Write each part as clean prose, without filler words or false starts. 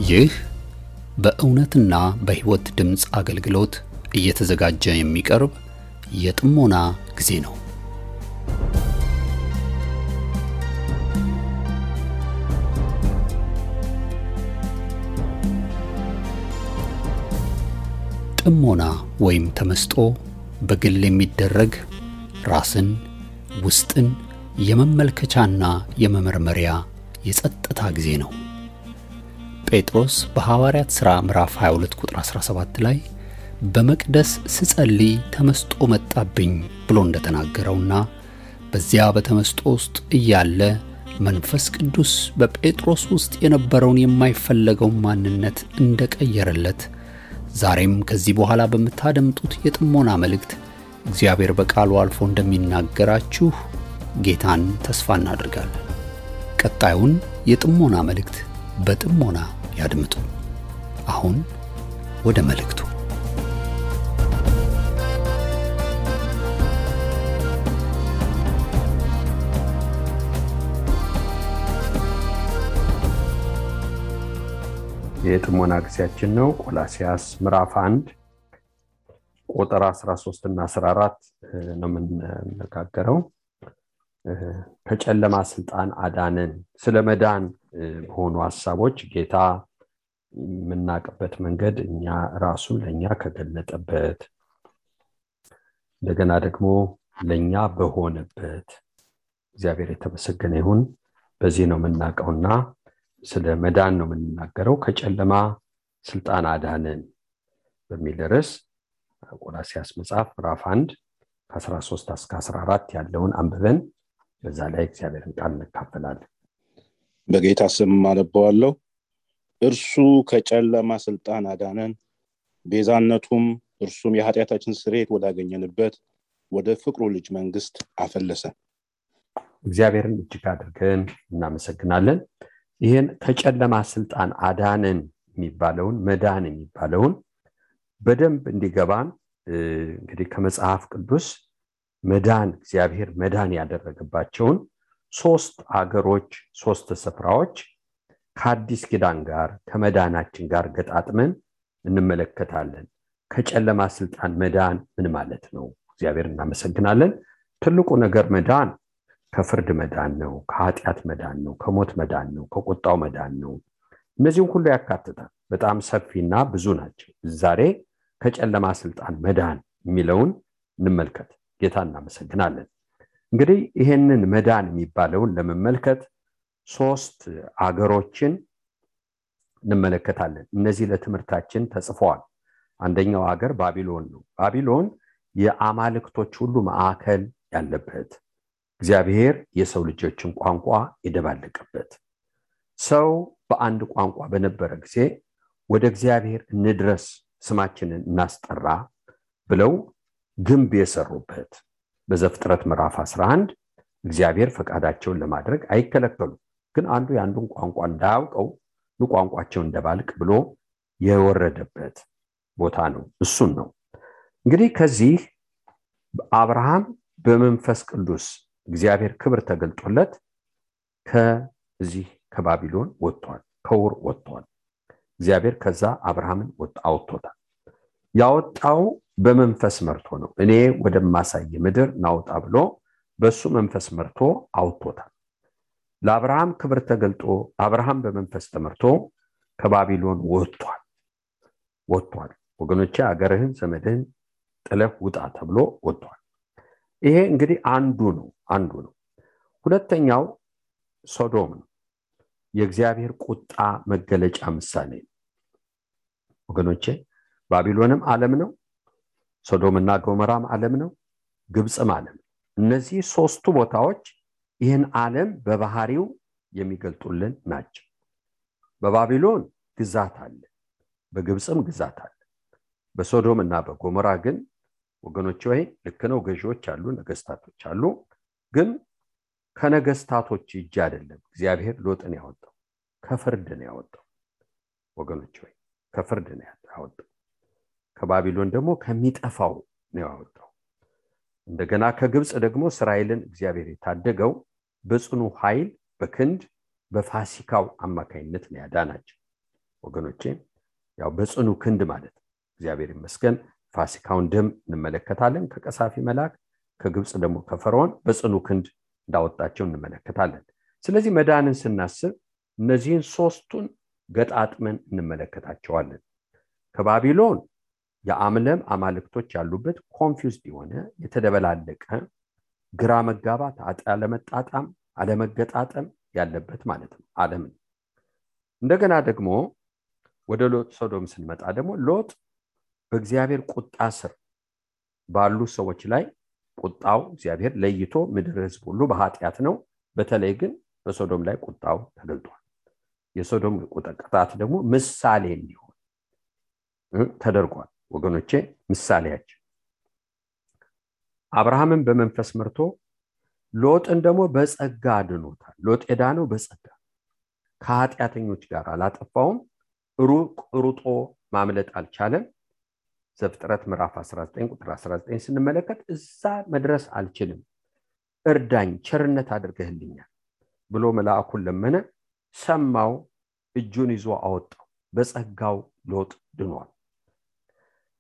ይህ በእውነትና በሕይወት ድምጽ አገልግሎት እየተዘጋጀ የሚቀርብ የጥሞና ጊዜ ነው። ጥሞና ወይም ተመስጦ በግል የሚደረግ ራስን ውስጥን የመመልከቻና የመመርመሪያ የጸጥታ ጊዜ ነው። ጴጥሮስ በሐዋርያት ሥራ ምዕራፍ 22 ቁጥር 17 ላይ በመቅደስ ስጸልይ ተመስጦ መጣብኝ ብሎ እንደተናገረውና በዚያ በተመስጦ ውስጥ እያለ መንፈስ ቅዱስ በጴጥሮስ ውስጥ የነበረውን የማይፈለገው ማንነት እንደቀየረለት ዛሬም ከዚህ በኋላ በመታደምጡት የጥሞና መልእክት እግዚአብሔር በቃሉ አልፎ እንደሚናገራችሁ ጌታን ተስፋ እናደርጋለን። ቀጣዩን የጥሞና መልእክት በጥሞና ያድምጡ። አሁን ወደ መልእክቱ። የጥሞና ጊዜያችን ነው። ቆላስይስ ምዕራፍ 1 ቁጥር 13 እና 14 ነው የምንነጋገረው። ከጨለማ ስልጣን አዳነን። ስለመዳን በሆኑ ሐሳቦች ጌታ የምናውቅበት መንገድ እኛ ራሱን ለኛ ከገለጠበት እንደገና ደግሞ ለኛ በሆነበት እግዚአብሔር የተመሰገነ ይሁን። በዚህ ነው የምናውቀውና ስለ መዳን ነው የምንናገረው። ከጨለማ ስልጣን አዳነን በሚል ርዕስ ቆላስይስ መጽሐፍ ምዕራፍ 1 ከ13 እስከ 14 ያለውን አንብበን በዛ ላይ እግዚአብሔርን ቃል እንካፈላለን። በጌታ ስም አነባዋለሁ። እርሱ ከጨለማ ስልጣን አዳነን፣ ቤዛነቱም እርሱም የኃጢአታችን ስርየት ወዳገኘንበት ወደ ፍቅሩ ልጅ መንግስት አፈለሰን። እግዚአብሔርን እጅግ አድርገን እናመሰግናለን። ይሄን ከጨለማ ስልጣን አዳነን የሚባለውን መዳን የሚባለውን በደንብ እንዲገባን እንግዲህ ከመጽሐፍ ቅዱስ መዳን እግዚአብሔር መዳን ያደረገባቸውን 3 አገሮች 3 ስፍራዎች ከአዲስ ኪዳን ጋር ከመዳናችን ጋር ገጣጥመን እንመለከታለን። ከጨለማ ስልጣን መዳን ምን ማለት ነው? እግዚአብሔር እናመሰግናለን። ትልቁ ነገር መዳን ከፍርድ መዳን ነው፣ ከኃጢአት መዳን ነው፣ ከሞት መዳን ነው፣ ከቁጣው መዳን ነው። እነዚህን ሁሉ ያካትታል። በጣም ሰፊና ብዙ ናቸው። ዛሬ ከጨለማ ስልጣን መዳን የሚለውን እንመልከት። ጌታ እናመሰግናለን። እንግዲህ ይሄንን መዳን የሚባለውን ለመመልከት 3 አገሮችን እንመለከታለን። እነዚህ ለትምህርታችን ተጽፈዋል። አንደኛው አገር ባቢሎን ነው። ባቢሎን የአማልክቶች ሁሉ ማዕከል ያለበት፣ እግዚአብሔር የሰው ልጆችን ቋንቋ የደባለቀበት፣ ሰው በአንድ ቋንቋ በነበረ ጊዜ ወደ እግዚአብሔር እንድረስ ስማችንን እናስጠራ ብለው ግንብ የሰሩበት። በዘፍጥረት ምዕራፍ 11 እግዚአብሔር ፈቃዳቸውን ለማድረግ አይከለከሉም፣ ግን አንዱ ያንዱን ቋንቋ እንዳያውቀው ቋንቋቸውን እንደባልቅ ብሎ የወረደበት ቦታ ነው። እሱን ነው እንግዲህ ከዚህ አብርሃም በመንፈስ ቅዱስ እግዚአብሔር ክብር ተገልጦለት ከዚህ ከባቢሎን ወጥቷል፣ ከውር ወጥቷል። እግዚአብሔር ከዛ አብርሃምን አውጥቶታል። ያወጣው በመንፈስ መርቶ ነው። እኔ ወደማሳይ ምድር ናውጣ ብሎ በሱ መንፈስ መርቶ አውጥቶታል። ለአብርሃም ክብር ተገልጦ አብርሃም በመንፈስ ተመርቶ ከባቢሎን ወጥቷል። ወገኖቼ አገርህን ዘመድህን ጥለህ ውጣ ተብሎ ወጥቷል። ይሄ እንግዲህ አንዱ ነው። ሁለተኛው ሶዶም ነው። የእግዚአብሔር ቁጣ መገለጫ ምሳሌ ነው። ወገኖቼ ባቢሎንም ዓለም ነው፣ ሶዶምና ጎሞራም ዓለም ነው፣ ግብጽም ዓለም ነው። እነዚህ 3ቱ ቦታዎች ይህን ዓለም በባህሪው የሚገልጡልን ናቸው። በባቢሎን ግዛት አለ፣ በግብጽም ግዛት አለ። በሶዶምና በጎሞራ ግን ወገኖቼ ወይ ልክ ነው፣ ገዢዎች አሉ፣ ነገስታቶች አሉ። ግን ከነገስታቶች እጅ አይደለም እግዚአብሔር ሎጥን ያወጣው፣ ከፍርድ ነው ያወጣው። ወገኖቼ ወይ ከፍርድ ነው ያወጣው። ከባቢሎን ደግሞ ከሚጠፋው ነው ያወጣው። እንደገና ከግብጽ ደግሞ እስራኤልን እግዚአብሔር የታደገው በጽኑ ኃይል በክንድ በፋሲካው አማካይነት ነው ያዳናቸው። ወገኖቼ ያው በጽኑ ክንድ ማለት እግዚአብሔር ይመስገን ፋሲካውን ደም እንመለከታለን ከቀሳፊ መልአክ ከግብጽ ደግሞ ከፈርዖን በጽኑ ክንድ እንዳወጣቸው እንመለከታለን ስለዚህ መዳንን ስናስብ እነዚህን ሶስቱን ገጣጥመን እንመለከታቸዋለን ከባቢሎን የአምለም አማልክቶች ያሉበት ኮንፊውዝድ የሆነ የተደበላለቀ ግራ መጋባት አለመጣጣም አለመገጣጠም ያለበት ማለት ነው ዓለም እንደገና ደግሞ ወደ ሎጥ ሶዶም ስንመጣ ደግሞ ሎጥ በእግዚአብሔር ቁጣ ስር ባሉ ሰዎች ላይ ቁጣው እግዚአብሔር ለይቶ ምድር ህዝብ ሁሉ በኃጢያት ነው በተለይ ግን በሶዶም ላይ ቁጣው ተገልጧል የሶዶም ቁጣት ደግሞ ምሳሌ እንዲሆን ተደርጓል ወገኖቼ ምሳሌያችን አብርሃምን በመንፈስ መርቶ ሎጥን ደግሞ በጸጋ አድኖታል ሎጥ የዳነው በጸጋ ከኃጢያተኞች ጋር አላጠፋውም ሩጦ ማምለጥ አልቻለም ዘፍጥረት ምዕራፍ 19 ቁጥር 19 ስንመለከት እዛ መድረስ አልችልም እርዳኝ ቸርነት አድርገህልኛል ብሎ መልአኩን ለመነ ሰማው እጁን ይዞ አወጣው በጸጋው ሎጥ ድኗል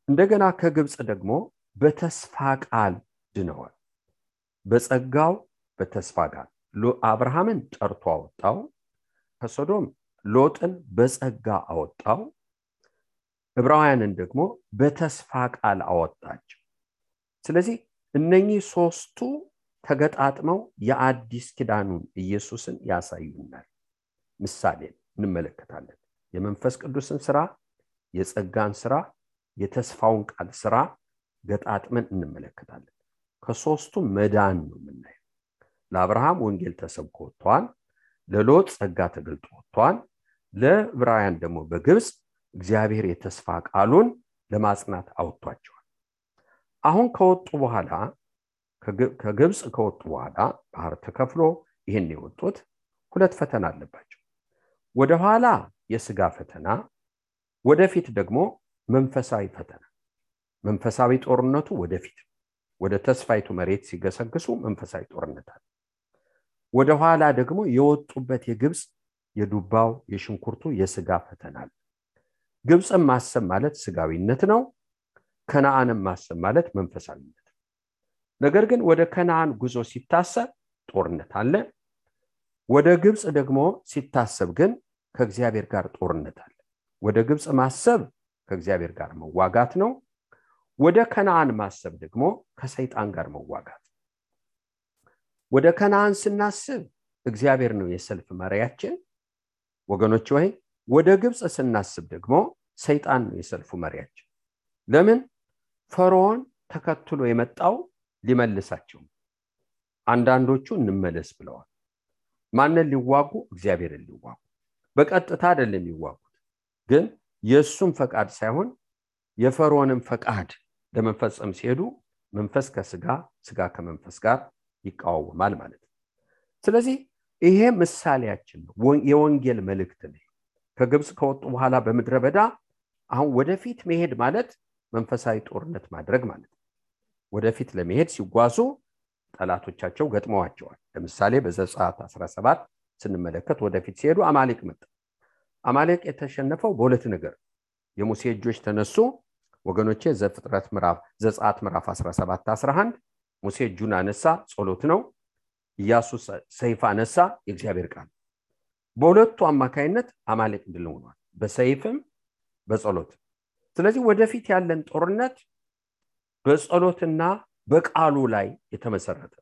እንደገና ከግብጽ ደግሞ በተስፋ ቃል ድነዋል በጸጋው በተስፋ ቃል አብርሃምን ጠርቶ አወጣው ከሶዶም ሎጥን በጸጋ አወጣው ዕብራውያንን ደግሞ በተስፋ ቃል አወጣቸው ስለዚህ እነኚህ ሶስቱ ተገጣጥመው የአዲስ ኪዳኑን ኢየሱስን ያሳዩናል ምሳሌ እንመለከታለን የመንፈስ ቅዱስን ሥራ የጸጋን ሥራ የተስፋውን ቃል ሥራ ገጣጥመን እንመለከታለን ከሶስቱ መዳን ነው የምናየው ለአብርሃም ወንጌል ተሰብኮ ወጥቷል ለሎጥ ጸጋ ተገልጦ ወጥቷል ለዕብራውያን ደግሞ በግብጽ እግዚአብሔር የተስፋ ቃሉን ለማጽናት አውጥቷቸዋል አሁን ከወጡ በኋላ ከግብጽ ከወጡ በኋላ ባህር ተከፍሎ ይሄን የወጡት ሁለት ፈተና አለባቸው ወደ ኋላ የሥጋ ፈተና ወደፊት ደግሞ መንፈሳዊ ፈተና መንፈሳዊ ጦርነቱ ወደፊት ወደ ተስፋይቱ መሬት ሲገሰግሱ መንፈሳዊ ጦርነት አለ ወደ ኋላ ደግሞ የወጡበት የግብጽ የዱባው የሽንኩርቱ የሥጋ ፈተና አለ ግብጽን ማሰብ ማለት ሥጋዊነት ነው ከነዓንም ማሰብ ማለት መንፈሳዊነት ነገር ግን ወደ ከነዓን ጉዞ ሲታሰብ ጦርነት አለ ወደ ግብጽ ደግሞ ሲታሰብ ግን ከእግዚአብሔር ጋር ጦርነት አለ ወደ ግብጽ ማሰብ ከእግዚአብሔር ጋር መዋጋት ነው ወደ ከነዓን ማሰብ ደግሞ ከሰይጣን ጋር መዋጋት ወደ ከነዓን ስናስብ እግዚአብሔር ነው የሰልፍ መሪያችን ወገኖች ሆይ ወደ ግብጽ ስናስብ ደግሞ ሰይጣን ነው የሰልፉ መሪያችን ለምን ፈርዖን ተከትሎ የመጣው ሊመልሳቸው አንዳንዶቹ እንመለስ ብለዋል ማንን ሊዋጉ እግዚአብሔርን ሊዋጉ በቀጥታ አይደለም ሊዋጉት ግን የሱም ፈቃድ ሳይሆን የፈርዖንን ፈቃድ ለመፈጸም ሲሄዱ መንፈስ ከሥጋ ሥጋ ከመንፈስ ጋር ይቃወማል ማለት ነው ስለዚህ ይሄ ምሳሌያችን ነው የወንጌል መልእክት ነው ከግብጽ ከወጡ በኋላ በመድረ በዳ አሁን ወደፊት መሄድ ማለት መንፈሳዊ ጦርነት ማድረግ ማለት ነው ወደፊት ለመሄድ ሲጓዙ ጠላቶቻቸው ገጥመዋቸዋል ለምሳሌ በዘጸአት 17 ስንመለከት ወደፊት ሲሄዱ አማሌቅ መጣ አማሌቅ የተሸነፈው በሁለት ነገር የሙሴ እጆች ተነሱ ወገኖቼ ዘፍጥረት ምዕራፍ ዘጸአት ምዕራፍ 17 11 ሙሴ እጁን አነሳ ጸሎት ነው ኢያሱ ሰይፍ አነሳ የእግዚአብሔር ቃል በሁለቱ አማካይነት አማሌቅ ድል ሆኗል በሰይፍም በጸሎት ስለዚህ ወደፊት ያለን ጦርነት በጸሎትና በቃሉ ላይ የተመሰረተ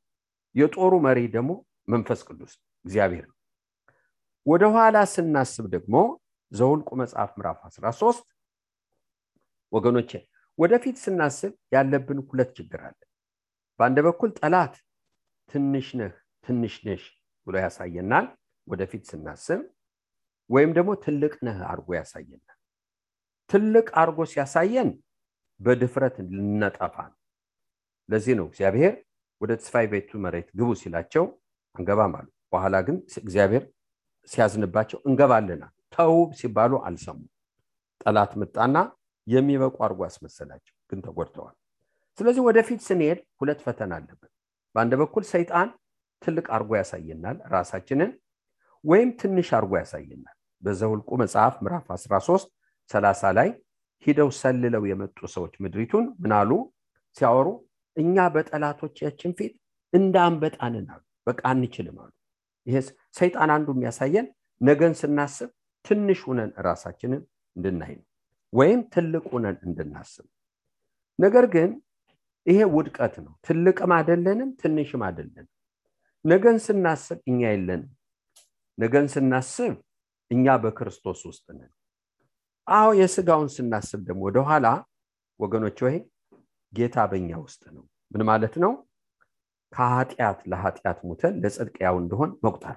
የጦሩ መሪ ደግሞ መንፈስ ቅዱስ እግዚአብሔር ወደ ኋላ ስናስብ ደግሞ ዘኍልቍ መጽሐፍ ምዕራፍ 13 ወገኖቼ ወደፊት ስናስብ ያለብን ሁለት ችግር አለ በአንድ በኩል ጠላት ትንሽ ነሽ ብሎ ያሳየናል ወደፊት ስናስብ ወይም ደግሞ ትልቅ ነህ አርጎ ያሳየናል ትልቅ አርጎ ሲያሳየን በድፍረት ልንጠፋ ለዚህ ነው እግዚአብሔር ወደ ተስፋይቱ መሬት ግቡ ሲላቸው እንገባም አሉ በኋላ ግን እግዚአብሔር ሲያዝንባቸው እንገባለና ተው ሲባሉ አልሰሙ ጠላት መጣና የሚበቁ አርጎ አስመሰላቸው ግን ተጎድተዋል ስለዚህ ወደፊት ስንሄድ ሁለት ፈተና አለበት በአንድ በኩል ሰይጣን ትልቅ አርጎ ያሳየናል ራሳችንን ወይም ትንሽ አርጎ ያሳየናል በዘኍልቍ መጽሐፍ ምዕራፍ 13 30 ላይ ሂደው ሰልለው የመጡ ሰዎች ምድሪቱን ምናሉ ሲያወሩ እኛ በጠላቶቻችን ፊት እንዳንበጣንን አሉ። በቃ አንችልም አሉ። ይሄስ ሰይጣን አንዱ የሚያሳየን ነገን ስናስብ ትንሽ ሆነን ራሳችንን እንድናይ ወይም ትልቅ ሆነን እንድናስብ። ነገር ግን ይሄ ውድቀት ነው። ትልቅም አይደለንም ትንሽም አይደለንም። ነገን ስናስብ እኛ የለንም። ነገን ስናስብ እኛ በክርስቶስ ውስጥ ነን። አዎ የሥጋውን ስናስብ ደግሞ ወደ ኋላ ወገኖች ሆይ ጌታ በእኛ ውስጥ ነው። ምን ማለት ነው? ከኃጢአት ለኃጢአት ሞተን ለጽድቅ ያው እንደሆን መቁጠር።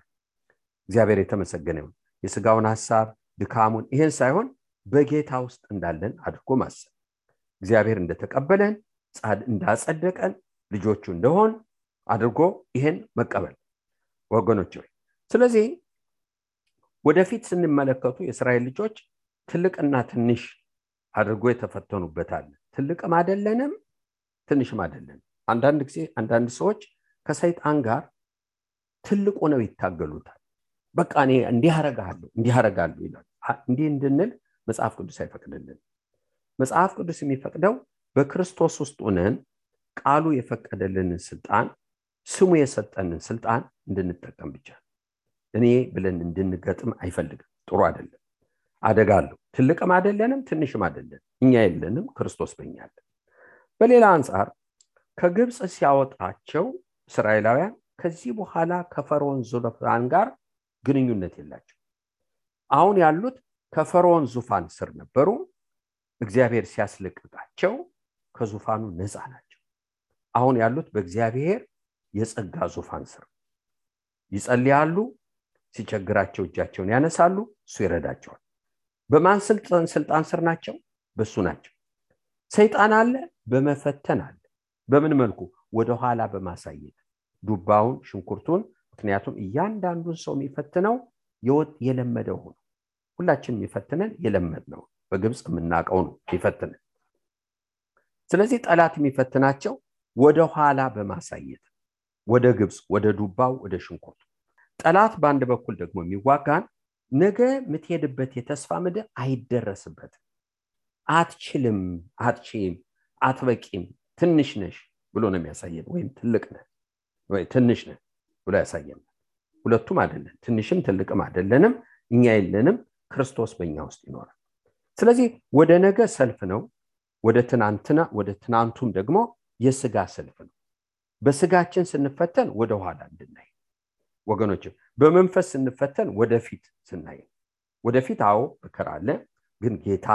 እግዚአብሔር የተመሰገነ ይሁን። የሥጋውን ሐሳብ ድካሙን ይሄን ሳይሆን በጌታ ውስጥ እንዳለን አድርጎ ማሰብ፣ እግዚአብሔር እንደተቀበለን እንዳጸደቀን ልጆቹ እንደሆን አድርጎ ይሄን መቀበል ወገኖች ሆይ። ስለዚህ ወደፊት ስንመለከቱ የእስራኤል ልጆች ትልቅና ትንሽ አድርጎ የተፈተኑበታል። ትልቅም አይደለንም ትንሽም አይደለንም። አንዳንድ ጊዜ አንዳንድ ሰዎች ከሰይጣን ጋር ትልቅ ሆነው ይታገሉታል። በቃ እኔ እንዲህ አደርጋለሁ ይላል። እንዲህ እንድንል መጽሐፍ ቅዱስ አይፈቅድልን። መጽሐፍ ቅዱስ የሚፈቅደው በክርስቶስ ውስጥ ሆነን ቃሉ የፈቀደልንን ስልጣን ስሙ የሰጠንን ስልጣን እንድንጠቀም ብቻ። እኔ ብለን እንድንገጥም አይፈልግም። ጥሩ አይደለም። አደጋለሁ። ትልቅም አይደለንም ትንሽም አይደለም። እኛ የለንም፣ ክርስቶስ በእኛ አለ። በሌላ አንፃር ከግብፅ ሲያወጣቸው እስራኤላውያን ከዚህ በኋላ ከፈርዖን ዙፋን ጋር ግንኙነት የላቸው። አሁን ያሉት ከፈርዖን ዙፋን ስር ነበሩ። እግዚአብሔር ሲያስለቅቃቸው ከዙፋኑ ነፃ ናቸው። አሁን ያሉት በእግዚአብሔር የጸጋ ዙፋን ስር ይጸልያሉ። ሲቸግራቸው እጃቸውን ያነሳሉ፣ እሱ ይረዳቸዋል። በማን ስልጣን ስር ናቸው? በሱ ናቸው። ሰይጣን አለ፣ በመፈተን አለ። በምን መልኩ? ወደ ኋላ በማሳየት ዱባውን ሽንኩርቱን። ምክንያቱም እያንዳንዱን ሰው የሚፈትነው የለመደው ሆኖ ሁላችን የሚፈትነን የለመድነው በግብፅ የምናውቀው ነው የሚፈትነን። ስለዚህ ጠላት የሚፈትናቸው ወደ ኋላ በማሳየት ወደ ግብፅ፣ ወደ ዱባው፣ ወደ ሽንኩርቱ። ጠላት በአንድ በኩል ደግሞ የሚዋጋን ነገ የምትሄድበት የተስፋ ምድር አይደረስበትም፣ አትችልም፣ አትችይም፣ አትበቂም፣ ትንሽ ነሽ ብሎ ነው የሚያሳየን። ወይም ትልቅ ነህ ወይ ትንሽ ነህ ብሎ ያሳየን። ሁለቱም አይደለም፣ ትንሽም ትልቅም አይደለንም። እኛ የለንም፣ ክርስቶስ በእኛ ውስጥ ይኖራል። ስለዚህ ወደ ነገ ሰልፍ ነው፣ ወደ ትናንቱም ደግሞ የሥጋ ሰልፍ ነው። በሥጋችን ስንፈተን ወደ ኋላ እንድናይ ወገኖች፣ በመንፈስ ስንፈተን ወደፊት ስናይ። ወደፊት አዎ መከራ አለ፣ ግን ጌታ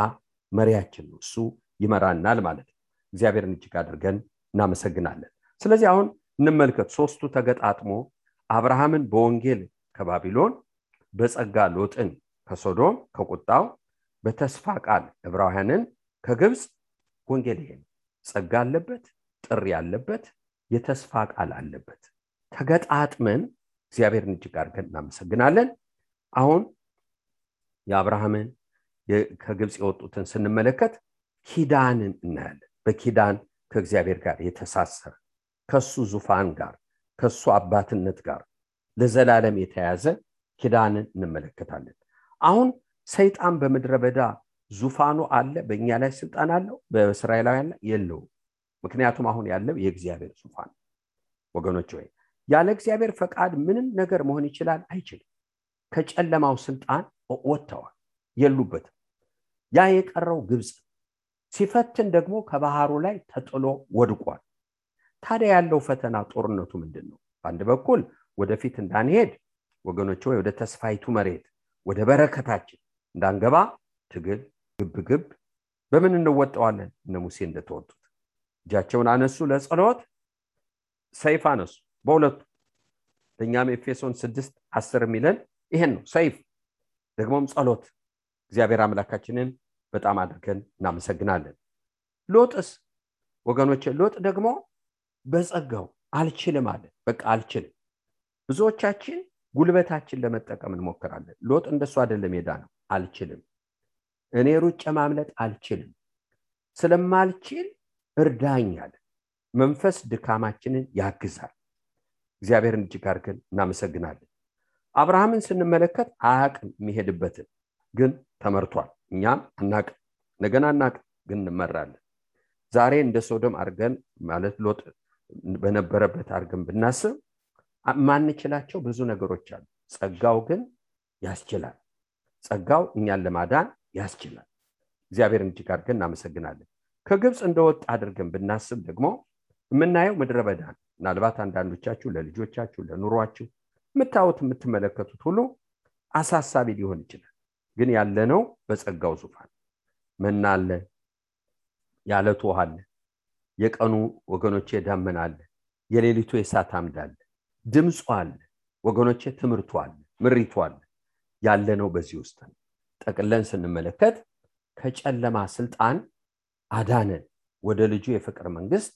መሪያችን ነው፣ እሱ ይመራናል ማለት ነው። እግዚአብሔርን እጅግ አድርገን እናመሰግናለን። ስለዚህ አሁን እንመልከት። ሶስቱ ተገጣጥሞ አብርሃምን በወንጌል ከባቢሎን፣ በጸጋ ሎጥን ከሶዶም ከቁጣው፣ በተስፋ ቃል ዕብራውያንን ከግብፅ። ወንጌል ይሄ ጸጋ አለበት፣ ጥሪ አለበት፣ የተስፋ ቃል አለበት። ተገጣጥመን እግዚአብሔርን እጅግ አድርገን እናመሰግናለን። አሁን የአብርሃምን ከግብፅ የወጡትን ስንመለከት ኪዳንን እናያለን። በኪዳን ከእግዚአብሔር ጋር የተሳሰረ ከሱ ዙፋን ጋር ከሱ አባትነት ጋር ለዘላለም የተያዘ ኪዳንን እንመለከታለን። አሁን ሰይጣን በምድረ በዳ ዙፋኑ አለ፣ በእኛ ላይ ስልጣን አለው፣ በእስራኤላውያን ላይ የለውም። ምክንያቱም አሁን ያለው የእግዚአብሔር ዙፋን ወገኖች ሆይ፣ ያለ እግዚአብሔር ፈቃድ ምንም ነገር መሆን ይችላል? አይችልም። ከጨለማው ስልጣን ወጥተዋል፣ የሉበትም። ያ የቀረው ግብፅ ሲፈትን ደግሞ ከባህሩ ላይ ተጥሎ ወድቋል። ታዲያ ያለው ፈተና ጦርነቱ ምንድነው? በአንድ በኩል ወደፊት እንዳንሄድ ወገኖች ሆይ፣ ወደ ተስፋይቱ መሬት ወደ በረከታችን እንዳንገባ ትግል፣ ግብግብ። በምን እንወጣዋለን? እነ ሙሴ እንደተወጡት እጃቸውን አነሱ፣ ለጸሎት ሰይፍ አነሱ በሁለቱ። ለኛም ኤፌሶን 6:10 የሚለን ይሄን ነው፣ ሰይፍ ደግሞም ጸሎት። እግዚአብሔር አምላካችንን በጣም አድርገን እናመሰግናለን። ሎጥስ ወገኖች፣ ሎጥ ደግሞ በጸጋው አልችልም አለ። በቃ አልችልም። ብዙዎቻችን ጉልበታችን ለመጠቀም እንሞክራለን። ሎጥ እንደሱ አይደለም የዳነው። አልችልም፣ እኔ ሩጬ ማምለጥ አልችልም፣ ስለማልችል እርዳኝ አለ። መንፈስ ድካማችንን ያግዛል። እግዚአብሔርን እጅግ አድርገን እናመሰግናለን። አብርሃምን ስንመለከት አያውቅም የሚሄድበትን። ግን ተመርቷል። እኛም አናቅ ነገና አናቅ ግን እንመራለን። ዛሬ እንደ ሶዶም አርገን ማለት ሎጥ በነበረበት አርገን ብናስብ ማንችላቸው ብዙ ነገሮች አሉ። ጸጋው ግን ያስችላል። ጸጋው እኛን ለማዳን ያስችላል። እግዚአብሔርን እጅግ አድርገን እናመሰግናለን። ከግብጽ እንደወጣ አድርገን ብናስብ ደግሞ የምናየው ምድረ በዳ ነው። ምናልባት አንዳንዶቻችሁ ለልጆቻችሁ ለኑሯችሁ የምታዩት የምትመለከቱት ሁሉ አሳሳቢ ሊሆን ይችላል። ግን ያለነው በጸጋው ዙፋን መና አለ፣ ያለቱ ውሃ አለ፣ የቀኑ ወገኖቼ ደመና አለ፣ የሌሊቱ የእሳት አምድ አለ፣ ድምፁ አለ ወገኖቼ፣ ትምህርቱ አለ፣ ምሪቱ አለ። ያለነው በዚህ ውስጥ ነው። ጠቅለን ስንመለከት ከጨለማ ስልጣን አዳነን፣ ወደ ልጁ የፍቅር መንግስት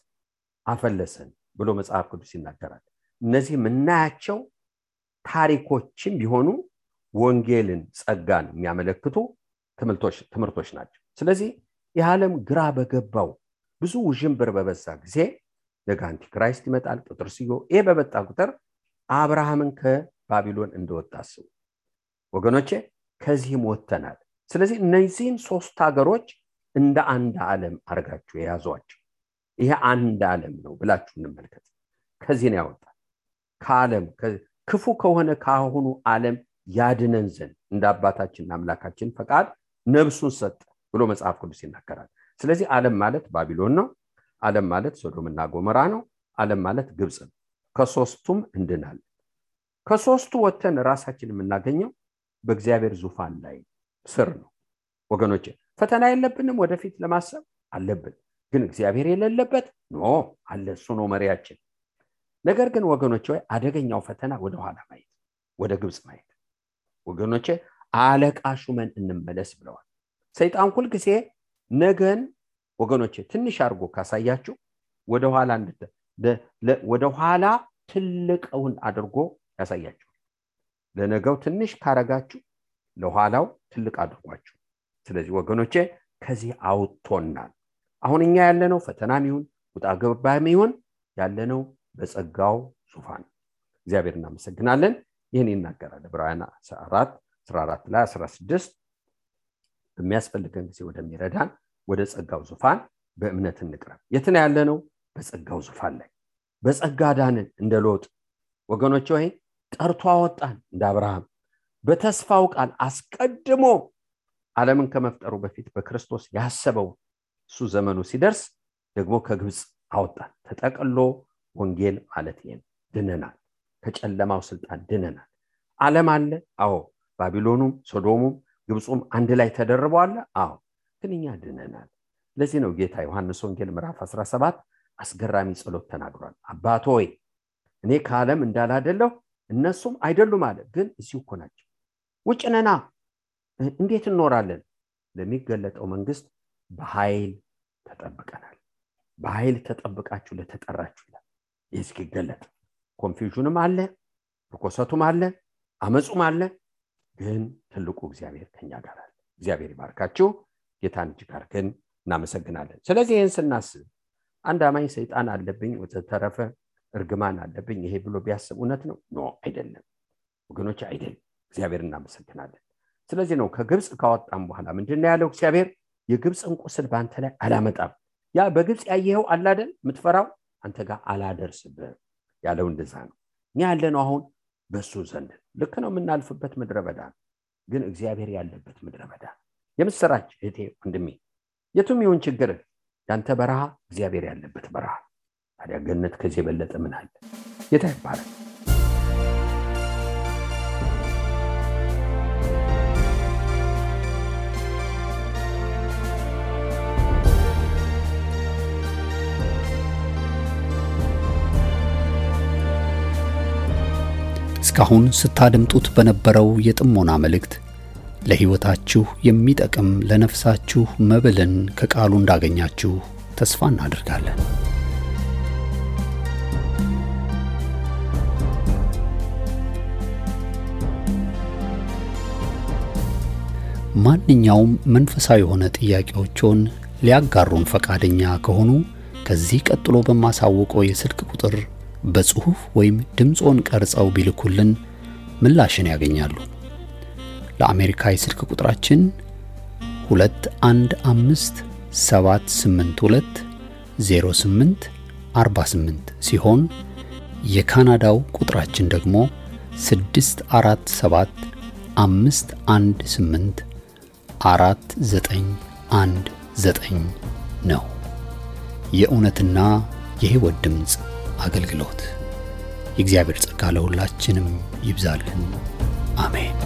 አፈለሰን ብሎ መጽሐፍ ቅዱስ ይናገራል። እነዚህ ምናያቸው ታሪኮችም ቢሆኑ ወንጌልን ጸጋን የሚያመለክቱ ትምህርቶች ናቸው። ስለዚህ የዓለም ግራ በገባው ብዙ ውዥንብር በበዛ ጊዜ ነገ አንቲክራይስት ይመጣል፣ ጴጥሮስዮ ይሄ በመጣ ቁጥር አብርሃምን ከባቢሎን እንደወጣ አስቡ ወገኖቼ። ከዚህም ወጥተናል። ስለዚህ እነዚህን ሶስት ሀገሮች እንደ አንድ ዓለም አርጋችሁ የያዟቸው ይሄ አንድ ዓለም ነው ብላችሁ እንመልከት። ከዚህ ነው ያወጣል። ከዓለም ክፉ ከሆነ ካሁኑ ዓለም ያድነን ዘንድ እንደ አባታችንና አምላካችን ፈቃድ ነፍሱን ሰጠ ብሎ መጽሐፍ ቅዱስ ይናገራል። ስለዚህ ዓለም ማለት ባቢሎን ነው። ዓለም ማለት ሶዶምና ጎሞራ ነው። ዓለም ማለት ግብጽ ነው። ከሶስቱም እንድናል። ከሶስቱ ወተን ራሳችን የምናገኘው በእግዚአብሔር ዙፋን ላይ ስር ነው ወገኖቼ። ፈተና የለብንም፣ ወደፊት ለማሰብ አለብን። ግን እግዚአብሔር የሌለበት ኖ አለ፣ እሱ ነው መሪያችን። ነገር ግን ወገኖቼ አደገኛው ፈተና ወደ ኋላ ማየት፣ ወደ ግብጽ ማየት ወገኖቼ። አለቃ ሹመን እንመለስ ብለዋል። ሰይጣን ሁሉ ጊዜ ነገን ወገኖቼ ትንሽ አርጎ ካሳያችሁ ወደ ኋላ ትልቅውን አድርጎ ያሳያችሁ። ለነገው ትንሽ ካረጋችሁ ለኋላው ትልቅ አድርጓችሁ። ስለዚህ ወገኖቼ ከዚህ አውጥቶናል። አሁን እኛ ያለነው ፈተናም ይሁን ውጣ ገባም ይሁን ያለነው በጸጋው ዙፋን። እግዚአብሔር እናመሰግናለን። ይህን ይናገራል ዕብራውያን 4:14 ላይ 16 በሚያስፈልገን ጊዜ ወደሚረዳን ወደ ጸጋው ዙፋን በእምነት እንቅረብ። የት ነው ያለነው? በጸጋው ዙፋን ላይ። በጸጋ ዳንን እንደ ሎጥ ወገኖቼ፣ ወይ ጠርቶ አወጣን እንደ አብርሃም። በተስፋው ቃል አስቀድሞ ዓለምን ከመፍጠሩ በፊት በክርስቶስ ያሰበው እሱ ዘመኑ ሲደርስ ደግሞ ከግብጽ አወጣን። ተጠቅሎ ወንጌል ማለት ይሄን ድነናል። ከጨለማው ስልጣን ድነናል። ዓለም አለ፣ አዎ። ባቢሎኑም ሶዶሙም ግብጽም አንድ ላይ ተደርበዋል፣ አዎ። ግን እኛ ድነናል። ለዚህ ነው ጌታ ዮሐንስ ወንጌል ምዕራፍ 17 አስገራሚ ጸሎት ተናግሯል። አባት ሆይ እኔ ከዓለም እንዳላደለሁ እነሱም አይደሉም አለ። ግን እዚሁ እኮ ናቸው። ውጭ ነና እንዴት እንኖራለን? ለሚገለጠው መንግስት በኃይል ተጠብቀናል። በኃይል ተጠብቃችሁ ለተጠራችሁ ይላል። ይስኪገለጥ ኮንፊውዥንም አለ፣ ርኩሰቱም አለ፣ አመጹም አለ። ግን ትልቁ እግዚአብሔር ከኛ ጋር አለ። እግዚአብሔር ይባርካችሁ። ጌታን እጅግ አድርገን እናመሰግናለን። ስለዚህ ይህን ስናስብ አንድ አማኝ ሰይጣን አለብኝ ወተተረፈ እርግማን አለብኝ ይሄ ብሎ ቢያስብ እውነት ነው? ኖ አይደለም ወገኖች፣ አይደለም። እግዚአብሔር እናመሰግናለን። ስለዚህ ነው ከግብጽ ካወጣን በኋላ ምንድነው ያለው እግዚአብሔር? የግብጽን ቁስል ባንተ ላይ አላመጣም። ያ በግብጽ ያየኸው አለ አይደል የምትፈራው አንተ ጋር አላደርስብህ ያለው እንደዛ ነው። እኛ ያለነው አሁን በሱ ዘንድ ልክ ነው። የምናልፍበት ምድረ በዳ ግን እግዚአብሔር ያለበት ምድረ በዳ። የምስራች እህቴ ወንድሜ፣ የቱም ይሁን ችግር ያንተ በረሃ እግዚአብሔር ያለበት በረሃ። ታዲያ ገነት ከዚህ የበለጠ ምን አለ? ጌታ ይባረክ። እስካሁን ስታደምጡት በነበረው የጥሞና መልእክት ለሕይወታችሁ የሚጠቅም ለነፍሳችሁ መብልን ከቃሉ እንዳገኛችሁ ተስፋ እናደርጋለን። ማንኛውም መንፈሳዊ የሆነ ጥያቄዎችን ሊያጋሩን ፈቃደኛ ከሆኑ ከዚህ ቀጥሎ በማሳወቀው የስልክ ቁጥር በጽሁፍ ወይም ድምጾን ቀርጸው ቢልኩልን ምላሽን ያገኛሉ። ለአሜሪካ የስልክ ቁጥራችን 2157820848 ሲሆን የካናዳው ቁጥራችን ደግሞ 647-518-4919 ነው። የእውነትና የሕይወት ድምፅ አገልግሎት። የእግዚአብሔር ጸጋ ለሁላችንም ይብዛልን። አሜን።